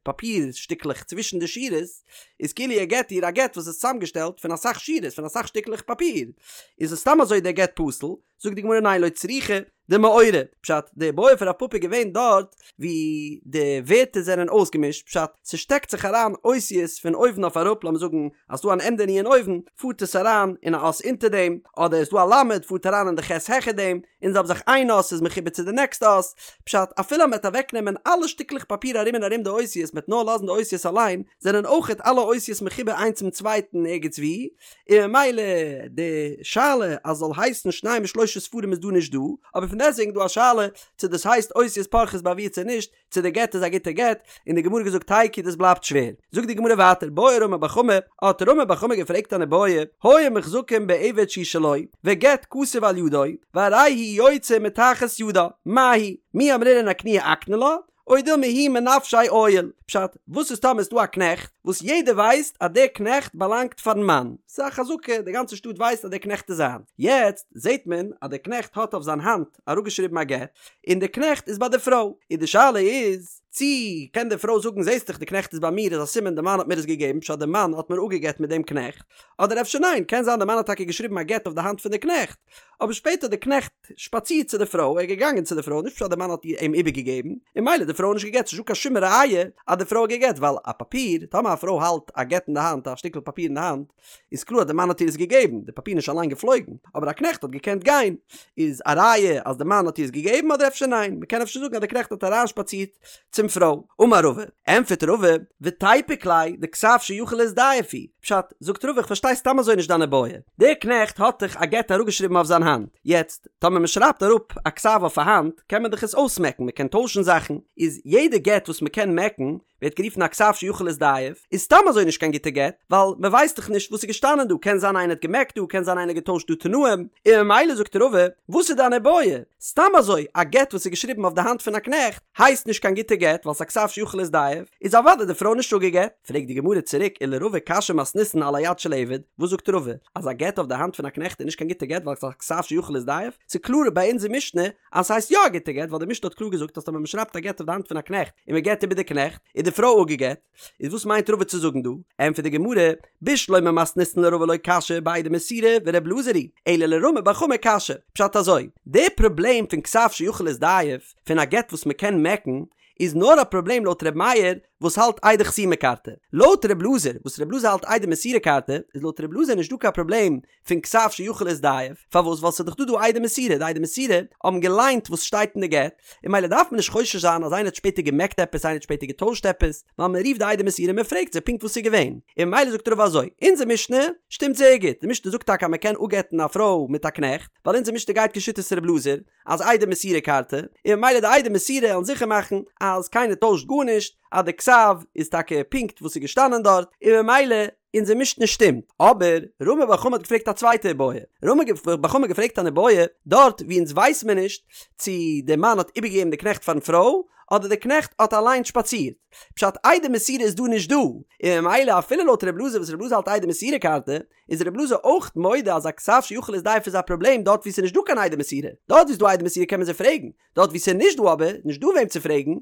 פאפיר שטיקלעך צווישן די שורות, איז כאילו ער געט איר א גט וואס איז צוזאמגעשטעלט פון אסאך שורות פון אסאך שטיקלעך פאפיר, איז עס סתם אזוי דער גט פסול, זאגט די גמרא ניין לא צריכא דמעורה, פשט די בעיא פון רב פפא איז געווען דארט ווי די ווערטער זענען אויסגעמישט, פשט ס'שטעקט זיך אריין אותיות פון אויבן אויף אראפ, לאמיר זאגן אז ס'דא אן ענדע נון אויבן פארט עס אריין אין א אות אונטער דעם, אדער איז דא א למד פארט אריין אין די ח' העכער דעם, און זעלבע זאך איין אות איז מחובר צו די נעקסטע אות, פשט אפילו אז מ'וועט אוועקנעמען אלע שטיקלעך פאפיר ארום און ארום די אותיות מ'וועט נאר לאזן די אותיות אליין, זענען אויכעט אלע אותיות מחובר איינס צום צווייטן ערגעץ וואו, און ממילא די שאלה אז זאל הייסן שניים ושלושה ספרים איז דא נישט דא, אבער פון דעסטוועגן איז דא א שאלה צו דאס הייסט אותיות פורחות באוויר צו נישט, צו די גט איז א גוטע גט, און די גמרא האט געזאגט תיקו דאס בלייבט שווער. זאגט די גמרא ווייטער בעי רמי בר חמא, האט רמי בר חמא געפרעגט אן איבעיא, היו מוחזקים בעבד שהוא שלו, וגט כתוב על ידו, והרי הוא יוצא מתחת ידה, מהו, מי אמרינן אקנויי אקני לה, או דילמא הוא מנפשיה עייל. פשט, וואס איז טאמער איז דא א קנעכט, וואס יעדער ווייסט אז דער קנעכט באלאנגט פארן מאן, ס'איז א חזקה, די גאנצע שטאט ווייסט אז דער קנעכט איז זיין. יעצט זעט מען אז דער קנעכט האט אויף זיין האנט אראפגעשריבן א גט, און דער קנעכט איז ביי די פרוי, און די שאלה איז, צי קען די פרוי זאגן זעסט דאך די קנעכט איז ביי מיר איז א סימן די מאן האט מיר עס געגעבן פשט די מאן האט מיר אפגעגט מיט דעם קנעכט, אדער אפשר ניין, קען זיין די מאן האט טאקע געשריבן א גט אויף די האנט פון די קנעכט, אבער שפעטער האט די קנעכט שפאצירט צו די פרוי, ער איז געגאנגען צו די פרוי, נישט פשט די מאן האט אים איבערגעגעבן, און ממילא די פרוי איז נישט גע'גט, ס'נישט דא קיין שום ראיה אז די פרוי האט גע'גט, ווייל א פאפיר, טאמער א פרוי האלט א גט אין די האנט, א שטיקל פאפיר אין די האנט, איז קלאר אז די מאן האט איר עס געגעבן, די פאפיר איז נישט אליין געפלויגן, אבער א קנעכט האט געקענט גיין, איז א ראיה אז די מאן האט איר עס געגעבן אדער אפשר ניין, מ'קען אפשר זאגן אז די קנעכט האט אריינשפאצירט צום פרוי. אמר רבא, ענטפערט רבא, ותיפוק ליה דכתב שיכול להזדייף הוא, פשט, זאגט רבא איך פארשטיי סתם אזוי נישט דיין איבעיא, דער קנעכט האט דאך א גט אראפגעשריבן אויף זיין האנט, יעצט, טאמער מ'שרייבט אראפ א כתב אויף א האנט, קען מען דאך עס אויסמעקן, מ'קען טוישן זאכן, איז יעדע גט וואס מ'קען מעקן, ווערט גערופן א כתב שיכול להזדייף, איז סתם אזוי נישט קיין גוטע גט, ווייל מען ווייסט דאך נישט וואס איז געשטאנען דא, קען זיין איינער האט געמעקט דא, קען זיין איינער האט געטוישט דא תנאים, און ממילא זאגט רבא, וואס איז דיין איבעיא? סתם אזוי א גט וואס איז געשריבן אויף די האנט פון א קנעכט, הייסט נישט קיין גוטע גט, ווייל ס'איז א כתב שיכול להזדייף, איז אוודאי די פרוי נישט אפגעגט. פרעגט די גמרא צוריק ולרבא קשיא מתניתין על היד של עבד, וואס זאגט רבא? אז א גט אויף די האנט פון א קנעכט איז נישט קיין גוטע גט ווייל ס'איז א כתב שיכול להזדייף? ס'איז קלאר ביי אונזער משנה אז ס'הייסט יא א גוטע גט ווייל די משנה האט קלאר געזאגט אז טאמער מ'שרייבט א גט אויף די האנט פון א קנעכט און מ'געט איבער די קנעכט איז די פרוי אפגעגט, איז וואס מיינט רבא צו זאגן דא? ענטפערט די גמרא, בשלמא מתניתין לרבא לא קשיא בעדי מסירה ור' אלעזר היא, אלא לרמי בר חמא קשיא, פשט אזוי, די פראבלעם פון כתב שיכול להזדייף פון א גט וואס מ'קען מעקן איז נאר א פראבלעם לויט ר' מאיר וואס האלט עדי חתימה כרתי, לויט ר' אלעזר וואס ר' אלעזר האלט עדי מסירה כרתי איז לויט ר' אלעזר נישט דא קיין פראבלעם פון כתב שיכול להזדייף, פארוואס ווייל ס'איז דאך דא דא עדי מסירה, די עדי מסירה האבן געליינט וואס שטייט אין די גט, און ממילא דארף מען נישט חושש זיין אז איינער האט שפעטער געמעקט עפעס איינער האט שפעטער געטוישט עפעס, ווייל מען רופט די עדי מסירה און מען פרעגט זיי פונקט וואס ס'איז געווען, און ממילא זאגט רבא אזוי, אונזער משנה שטימט זייער גוט, די משנה זאגט טאקע אז מען קען אפגט'ן א פרוי מיט א קנעכט, ווייל אונזער משנה גייט כשיטת ר' אלעזר, אז עדי מסירה כרתי, און ממילא די עדי מסירה וועלן זיכער מאכן אז קיינער טוישט גארנישט, אז די כתב איז טאקע פונקט וואס איז געשטאנען דארט, און ממילא אונזער משנה שטימט. אבער רמי בר חמא האט געפרעגט א צווייטע איבעיא. רמי בר חמא האט געפרעגט אן איבעיא דארט וואו אונז ווייס מיר נישט צו דער מאן האט איבערגעגעבן די קנעכט פארן פרוי, אדער די קנעכט האט אליין שפאצירט. פשט עדי מסירה איז דא נישט דא, און ממילא אפילו לויט ר' אלעזר וואס ר' אלעזר האלט עדי מסירה כרתי, איז ר' אלעזר אויך מודה אז א כתב שיכול להזדייף איז א פראבלעם דארט וואו ס'איז נישט דא קיין עדי מסירה. דארט וואו ס'איז דא עדי מסירה קען מען זיי פרעגן. דארט וואו ס'איז נישט דא אבער נישט דא וועם צו פרעגן,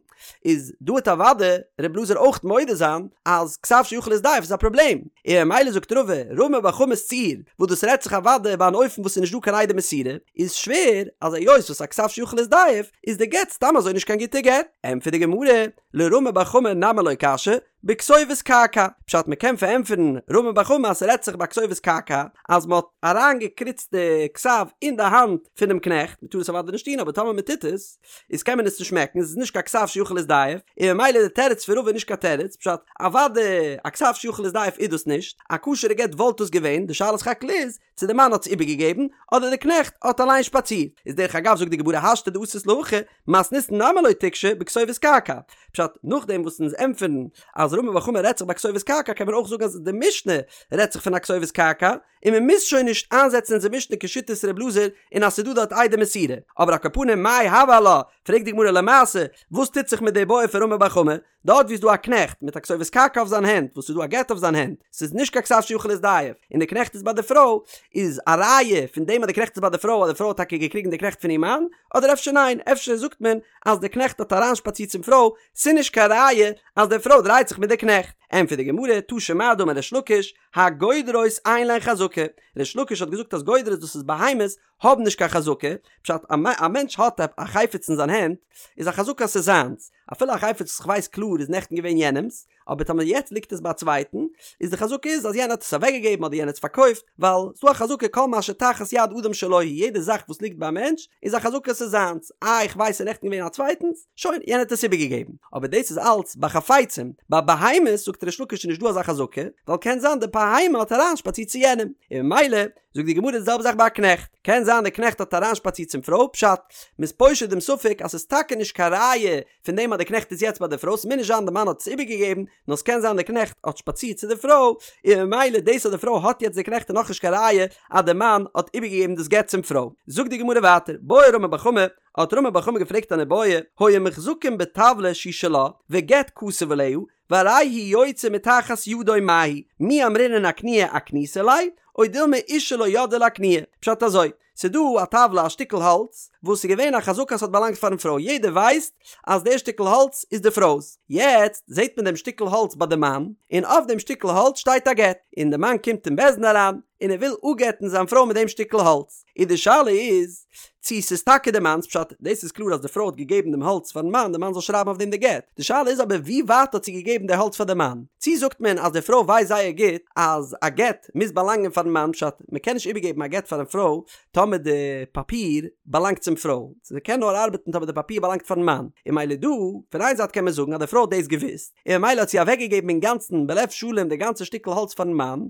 איז דא וועט אוודאי ר' אלעזר אויך מודה זיין אז כתב שיכול להזדייף איז א פראבלעם, און ממילא זאגט רבא, רמי בר חמא'ס ציור, וואס דאס רעדט זיך אוודאי ביי אן אופן וואס ס'איז נישט דא קיין עדי מסירה, איז שווער אז היות וואס א כתב שיכול להזדייף איז די גט סתם אזוי נישט קיין גוטע גט. ענטפערט די גמרא, לרמי בר חמא נמי לא קשיא, בכתובת קעקע, פשט מ'קען פארענטפערן רמי בר חמא אז ס'רעדט זיך ביי כתובת קעקע אז מ'האט אריינגעקריצט די כתב אין די האנט פונעם קנעכט, מ'טאר עס אוודאי נישט טון אבער טאמער מ'טוט עס איז קען מען עס נישט מעקן, עס איז נישט קיין כתב שיכול להזדייף, און ממילא די תירוץ פון רבא איז נישט קיין תירוץ, פשט אוודאי א כתב שיכול להזדייף איז דאס נישט, א כשר'ע גט וואלט דאס געווען, די שאלה סך הכל איז צו די מאן האט עס איבערגעגעבן אדער די קנעכט האט אליין שפאצירט, איז דרך אגב זאגט די גמרא השתא דאתית להכי, מתניתין נמי לא תיקשי בכתובת קעקע, פשט, נאכדעם וואס אונז ענטפערן אז רמי בר חמא רעדט זיך ביי כתובת קעקע קען מען אויך זאגן אז די משנה רעדט זיך פון א כתובת קעקע, און מען מוז שוין נישט איינזעצן אונזער משנה כשיטת ר' אלעזר און אז ס'איז דא דארט עדי מסירה, אבער על כל פנים מאי הוי עלה, פרעגט די גמרא למעשה וואס טוט זיך מיט די בעיא פון רמי בר חמא, דארט ווי איז דא א קנעכט מיט א כתובת קעקע אויף זיין הענט וואס איז דא א גט אויף זיין הענט, ס'איז נישט קיין כתב שיכול להזדייף, און די קנעכט איז ביי די פרוי, איז א ראיה פון דעם אז די קנעכט איז ביי די פרוי אז די פרוי האט טאקע געקריגן די קנעכט פון איר מאן, אדער אפשר ניין, אפשר זאגט מען אז די קנעכט האט אריינשפאצירט צום פרוי, ס'איז נישט קיין ראיה אז די פרוי דרייט זיך מיט די קנעכט. ענטפערט די גמרא, תא שמע דאמר ריש לקיש, הגודרות אין להן חזקה, ריש לקיש האט געזאגט אז גודרות דאס איז בהמות האבן נישט קיין חזקה, פשט א מענטש האט א חפץ אין זיין הענט איז א חזקה אז ס'איז זיינס, אפילו א חפץ וואס כ'ווייס קלאר איז נעכטן געווען יענעמ'ס, אבער טאמער יעצט ליגט עס ביי א צווייטן, איז די חזקה איז אז יענער האט עס אוועקגעגעבן אדער יענער האט עס פארקויפט, ווייל ס'דא א חזקה כל מה שתחת יד אדם שלו הוא, יעדע זאך וואס ליגט ביי א מענטש איז א חזקה ס'איז זיינס, איי איך ווייס ס'איז נעכטן געווען א צווייטנס, שוין, יענער האט עס איבערגעגעבן. אבער דאס איז אלץ ביי חפצים, ביי בהמות זאגט ריש לקיש איז נישט דא אזא חזקה, ווייל קען זיין די בהמה האט אריינשפאצירט צו יענעם, און ממילא זאגט די גמרא די זעלבע זאך ביי א קנעכט, קען זיין די קנעכט האט אריינשפאצירט צום פרוי, פשט, מ'איז פושט דעם ספק אז ס'איז טאקע נישט קיין ראיה פון דעם אז די קנעכט איז יעצט ביי די פרוי, ס'מוז נישט זיין די מאן האט עס איבערגעגעבן, נאר ס'קען זיין די קנעכט האט שפאצירט צו די פרוי, און ממילא דאס אז די פרוי האט יעצט די קנעכט איז נאכנישט קיין ראיה אז די מאן האט איבערגעגעבן דאס גט צום פרוי. זאגט די גמרא ווייטער, בעי רמי בר חמא, האט רמי בר חמא געפרעגט אן איבעיא, היו מוחזקין בטבלא שהיא שלה, וגט כתוב עליה, והרי הוא יוצא מתחת ידו מהו, מי אמרינן אקנויי אקניתה ליה, או דילמא אשה לא ידעה לאקנויי. פשט אזוי, ס'איז דא א טאוולע א שטיקל האלץ, וואס איז געווען א חזקה אז ס'האט באלאנגט פארן פרוי, יעדער ווייסט אז דער שטיקל האלץ איז די פרוי'ס, יעצט זעט מען דעם שטיקל האלץ ביי די מאן, און אויף דעם שטיקל האלץ שטייט א גט, און די מאן קומט אין בית דין אריין, און ער וויל אפגט'ן זיין פרוי מיט דעם שטיקל האלץ, און די שאלה איז צו ס'איז טאקע די מאנ'ס, פשט, דאס איז קלאר אז די פרוי האט געגעבן דעם האלץ פארן מאן, די מאן זאל שרייבן אויף דעם די גט, די שאלה איז אבער ווי ווייט האט זי געגעבן די האלץ פאר די מאן, צו זאגט מען אז די פרוי ווייסט זייער גוט אז א גט מוז באלאנגען פארן מאן, פשט, מ'קען נישט איבערגעבן א גט פארן פרוי טאמער די פאפיר באלאנגט צום פרוי, ס'קען נאר ארבעטן טאמער די פאפיר באלאנגט פארן מאן, און ממילא דא, פון איין זייט קען מען זאגן אז די פרוי האט דאס געוואוסט, און ממילא האט זי אוועקגעגעבן אינגאנצן בלב שלם די גאנצע שטיקל האלץ פארן מאן,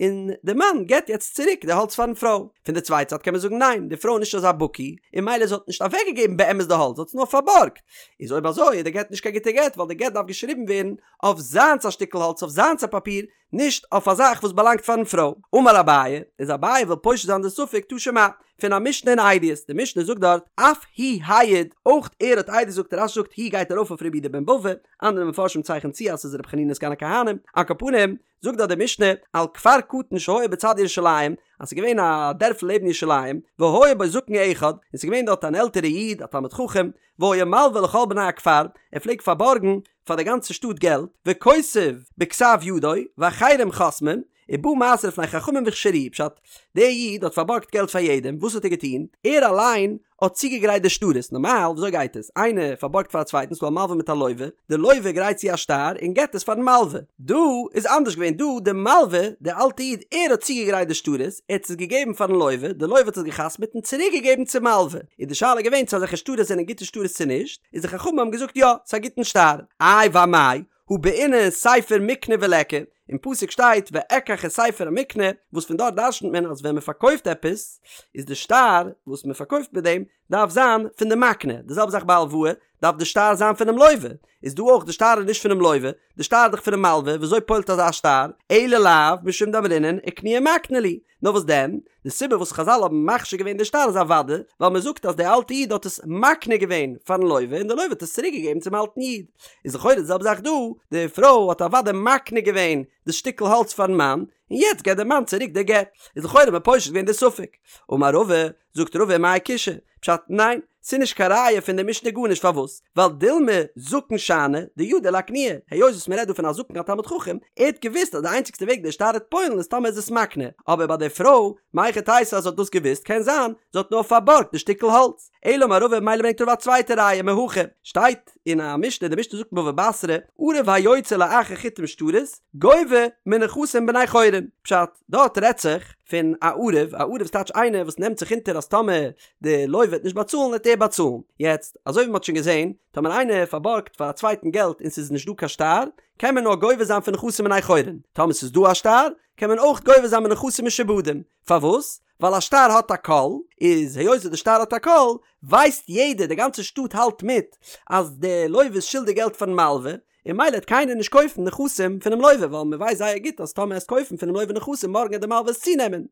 און די מאן געט יעצט צוריק די האלץ פארן פרוי. פון די צווייטע זייט קען מען זאגן ניין, די פרוי איז נישט אזא בקי, און ממילא זי האט נישט אוועקגעגעבן באמת די האלץ, זי האט עס נאר פארבארגט. איז אויב אזוי איז די גט נישט קיין גוטע גט, ווייל די גט דארף געשריבן ווערן אויף זיינס א שטיקל האלץ, אויף זיינס א פאפיר, נישט אויף א זאך וואס באלאנגט פארן פרוי. אמר אביי, איז אביי וויל פושט זיין די ספק תא שמע, פון א משנה אין עדיות, די משנה זאגט דארט, אף הוא העיד, אויך ער האט עדות געזאגט, רש"י זאגט הוא גייט ארויף אויף רבי יהודה בן בבא, אנדערע מפרשים צייכענען צו אז ס'איז רבי חנינא סגן הכהנים, על כל פנים, זאגט דארט די משנה, על כפר קטן שהיה בצד ירושלים, אז ס'איז געווען א דערפל לעבן ירושלים, והיה בו זקן אחד, און ס'איז געווען דארט אן עלטערע איד, א תלמיד חכם, והיה מלווה לכל בני הכפר, ער פלעגט פארבארגן פאר די גאנצע שטאט געלט, וכותב בכתב ידו, ואחרים חותמים, ובא מעשה לפני חכמים והכשירוהו, פשט, דער איד האט פארבארגט געלט פאר יעדעם, וואס האט ער געטון? ער אליין האט צוגעגרייט די שטרות, נארמאל וויאזוי גייט עס? איינער פארבארגט פאר א צווייטן, ס'דא א מלווה מיט א לווה, די לווה גרייט צו א שטר און געבט עס פארן מלווה. דא איז אנדערש געווען, דא די מלווה, די אלטע איד, ער האט צוגעגרייט די שטרות, ער האט עס געגעבן פארן לווה, די לווה האט עס געחתמעט און צוריק געגעבן צום מלווה. איז די שאלה געווען צו אזעלכע שטרות זענען גוטע שטרות צו נישט, איז די חכמים האבן געזאגט יא, ס'איז א גוטן שטר. איי ואמאי, הא בעינן ספר מיקנה וליכא, אין פסוק שטייט ואקח את ספר המקנה, וואס פון דארט דרשנ'ט מען אז ווען מען פארקויפט עפעס, איז די שטר וואס מען פארקויפט מיט דעם דארף זיין פון די מקנה, די זעלבע זאך ביי הלוואה, דארף די שטר זיין פונעם לווה, איז דא אויך די שטר איז נישט פונעם לווה, די שטר איז דאך פונעם מלווה, ווי אזוי פועל'ט אזא שטר, אלא לאו משום דאמרינן אקנויי מקנה להו, נאר וואס דען, די סיבה וואס חזל האבן מכשיר געווען די שטר איז אוודאי ווייל מען זאגט אז דער אלטע איד האט עס מקנה געווען פארן לווה און דער לווה האט עס צוריק געגעבן צום אלטן איד. איז לכאורה די זעלבע זאך דא, די פרוי האט אוודאי מקנה געווען די שטיקל האלץ פארן מאן, און יעצט געבט דער מאן צוריק די גט. איז לכאורה מען פושט געווען די ספק. אמר רבא, זאגט רבא מאי קושיא? פשט, ניין, ס'איז נישט קיין ראיה פון די משנה גארנישט פארוואס? ווייל דילמא זקן שאני דידע לאקנויי, היות וואס מ'רעדט דא פון א זקן א תלמיד חכם, ער האט געוואוסט אז די איינציגסטע וועג דער שטר וועט פועל'ן איז טאמער איז עס מקנה, אבער ביי די פרוי, מהיכי תיתי אז זי האט דאס געוואוסט, קען זיין זי האט נאר פארבארגט די שטיקל האלץ. אלא אמר רבא מילא ברענגט רבא א צווייטע ראיה מהכא, שטייט אין א משנה, די משנה זאגט אין בבא בתרא, ערב היוצא לאחר חיתום שטרות, גובה מנכסים בני חורין, פשט, דארט רעדט זיך פון א ערב, א ערב איז טייטש איינער וואס נעמט זיך אונטער אז טאמער די לוה וועט נישט באצאלן וועט ער באצאלן. יעצט, אזוי ווי מ'האט שוין געזען, טאמער איינער פארבארגט פאר א צווייטן געלט און ס'איז נישט דא קיין שטר, קען מען נאר גובה זיין פון נכסים בני חורין. טאמער ס'איז דא א שטר, קען מען אויך גובה זיין מנכסים משועבדים. פארוואס? ווייל א שטר האט א קול, איז היות די שטר האט א קול, ווייסט יעדער, די גאנצע שטאט האלט מיט, אז די לוה איז שולדיג געלט פארן מלווה, און מילא העט קיינער נישט קויפן נכסים פונעם לוה ווייל מען ווייסט זייער גוט אז טאמער עסט קויפן פונעם לוה נכסים מארגן העט די מלווה עס צונעמען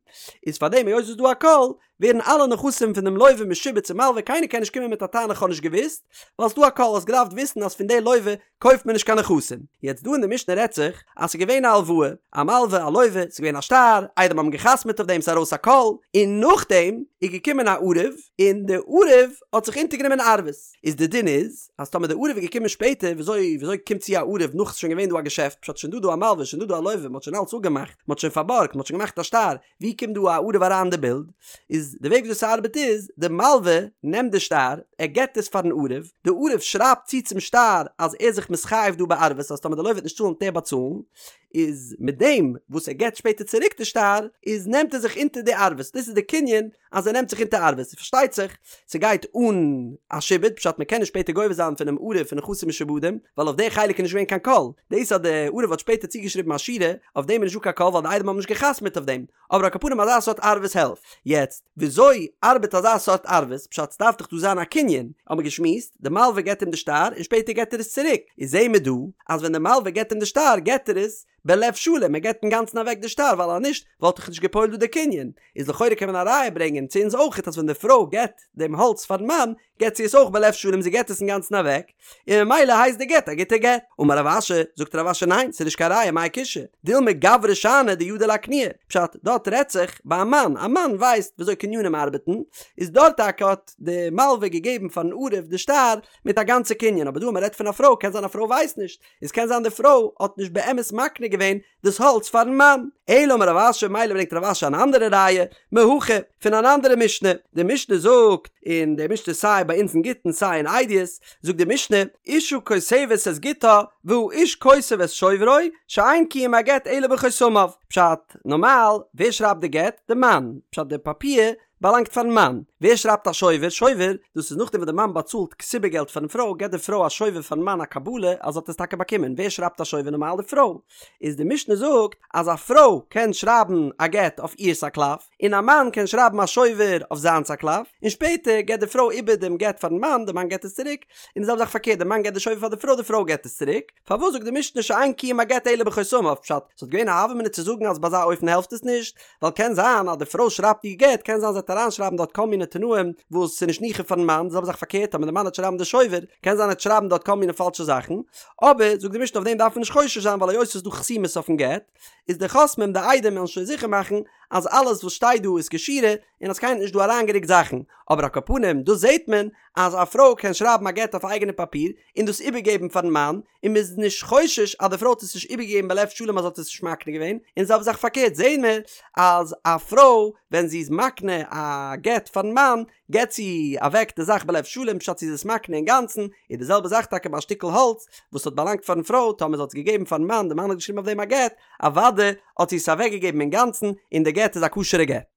איז פארדעם היות ס'איז דא א קול ווערן אלע נכסים פון דעם לוה משועבד צום מלווה קיינער קען נישט קומען מיט א טענה כ'האב נישט געוואוסט ווייל ס'דא א קול האסט געדארפט וויסן אז פון די לוה קויפט מען נישט קיין נכסים יעצט דא אין די משנה רעדט זיך אז ס'איז געווען א הלוואה א מלווה א לוה ס'איז געווען א שטר עדים האבן געחתמעט אויף דעם ס'איז ארויס א קול און נאכדעם איז געקומען א ערב און די ערב האט זיך אונטערגענומען ערבות איז די דין איז אז טאמער די ערב איז געקומען שפעטער, וויאזוי וויאזוי קומט צו א ערב נאך ס'איז שוין געווען דא א געשעפט, פשט שוין דא דא א מלווה שוין דא דא א לוה, מ'האט שוין אלץ אפגעמאכט, מ'האט שוין פארבארגט, מ'האט שוין געמאכט א שטר, ווי קומט דא א ערב אריין אין די בילד? איז די וועג וויאזוי ס'ארבעט איז, די מלווה נעמט די שטר, ער געבט עס פארן ערב, די ערב שרייבט צו צום שטר אז ער איז זיך מתחייב דא בערבות אז טאמער די לוה וועט נישט צאלן וועט ער באצאלן, איז מיט דעם וואס ער געבט שפעטער צוריק די שטר, איז נעמט ער זיך אונטער די ערבות, דאס איז די קנין אז ער נעמט זיך אונטער ערבות, פארשטייט זיך ס'גייט אן א שעבוד, פשט מ'קען נישט שפעטער גובה זיין פונעם ערב פון נכסים משועבדים, ווייל אויף די חלק איז נישט געווען קיין קול, דאס אז די ערב האט שפעטער צוגעשריבן א שורה, אויף דעם איז נישטא קיין קול ווייל די עדים האבן נישט גע'חתמ'עט אויף דעם, אבער על כל פנים אזא סארט ערבות העלפט. יעצט, וויאזוי ארבעט אזא סארט ערבות, פשט ס'דארף דאך דא זיין א קנין, האבן מיר געשמועסט, די מלווה געבט אים די שטר און שפעטער געבט ער עס צוריק, איז זעהן מיר דא אז ווען די מלווה געבט אים די שטר געבט ער עס. בלב שלם, ער געבט אינגאנצן אוועק די שטר ווייל אז נישט וואלט דאך נישט געפועלט דא די קנין, איז לכאורה קען מען א ראיה ברענגען צו אונז אויכעט אז ווען די פרוי געבט דעם האלץ פארן מאן געבט זי עס אויך בלב שלם זי געבט עס אינגאנצן אוועק, און ממילא הייסט די גט א גוטע גט. אמר רב אשי, זאגט רב אשי ניין ס'איז נישט קיין ראיה מאי קושיא, דילמא גברא שאני דידע לאקנויי, פשט, דארט רעדט זיך ביי א מאן, א מאן ווייסט וויאזוי קנינים ארבעטן, איז דארט טאקע האט די מלווה געגעבן פארן ערב די שטר מיט א גאנצע קנין, אבער דא אז מ'רעדט פון א פרוי קען זיין א פרוי ווייסט נישט, איז קען זיין די פרוי האט נישט באמת מקנה געווען דאס האלץ פארן מאן. אלא אמר רב אשי, מילא ברענגט רב אשי אן אנדערע ראיה, מהכא, פון אן אנדערע משנה, די משנה זאגט, און די משנה סיי ביי אונז אין גיטין סיי אין עדיות, זאגט די משנה, אשה כותבת את גיטה והאיש כותב את שוברו, שאין קיום הגט אלא בחותמיו, פשט, נארמאל, ווער שרייבט די גט? די מאן, פשט די פאפיר באלאנגט פארן מאן. ווער שרייבט א שובר? שובר, דאס איז נאכדעם וואס די מאן באצאלט כתובה געלט פארן פרוי, געבט די פרוי א שובר פארן מאן א קבלה אז זי האט עס טאקע באקומען. ווער שרייבט א שובר? נארמאל די פרוי. איז די משנה זאגט אז א פרוי קען שרייבן א גט אויף אירס א קלף, און א מאן קען שרייבן א שובר אויף זיינס א קלף, און שפעטער געבט די פרוי איבער דעם גט פארן מאן, די מאן געבט עס צוריק, און די זעלבע זאך פארקערט, די מאן געבט די שובר פאר די פרוי, די פרוי געבט עס צוריק. פארוואס זאגט די משנה שאין קיום הגט אלא בחותמיו? פשט, ס'וואלט געווען א הוה אמינא צו זאגן אז ביי אזא אופן העלפט עס נישט, ווייל קען זיין אז די פרוי שרייבט איר גט, קען זיין זי וועט אריינשרייבן דארט כל מיני תנאים וואס ס'איז נישט ניחא פארן מאן, די זעלבע זאך פארקערט אז די מאן וועט שרייבן די שובר, קען זיין ער וועט שרייבן דארט כל מיני פאלשע זאכן, אבער זאגט די משנה אויף דעם דארף מען נישט חושש זיין ווייל היות ס'איז דא חתימות אויפן גט, איז די חותמים די עדים וועלן שוין זיכער מאכן אז אלעס וואס שטייט דא איז כשורה און אז קיינער האט נישט דא אריינגערוקט זאכן, אבער על כל פנים דא זעט מען אז א פרוי קען שרייבן א גט אויף אייגענע פאפיר און דאס איבערגעבן פארן מאן, און מ'איז נישט חושש אז די פרוי האט עס נישט איבערגעגעבן בלב שלם אז זי האט עס נישט מקנה געווען, און זעלבע זאך פארקערט זעהן מיר אז א פרוי ווען זי איז מקנה א גט פארן מאן געבט זי אוועק די זאך בלב שלם פשט זי איז עס מקנה אינגאנצן, איז די זעלבע זאך טאקע ביי א שטיקל האלץ וואס האט באלאנגט פארן פרוי טאמער זי האט עס געגעבן פארן מאן די מאן האט געשריבן אויף דעם א גט אוודאי האט זי עס אוועקגעגעבן אינגאנצן און די גט איז א כשר'ע גט.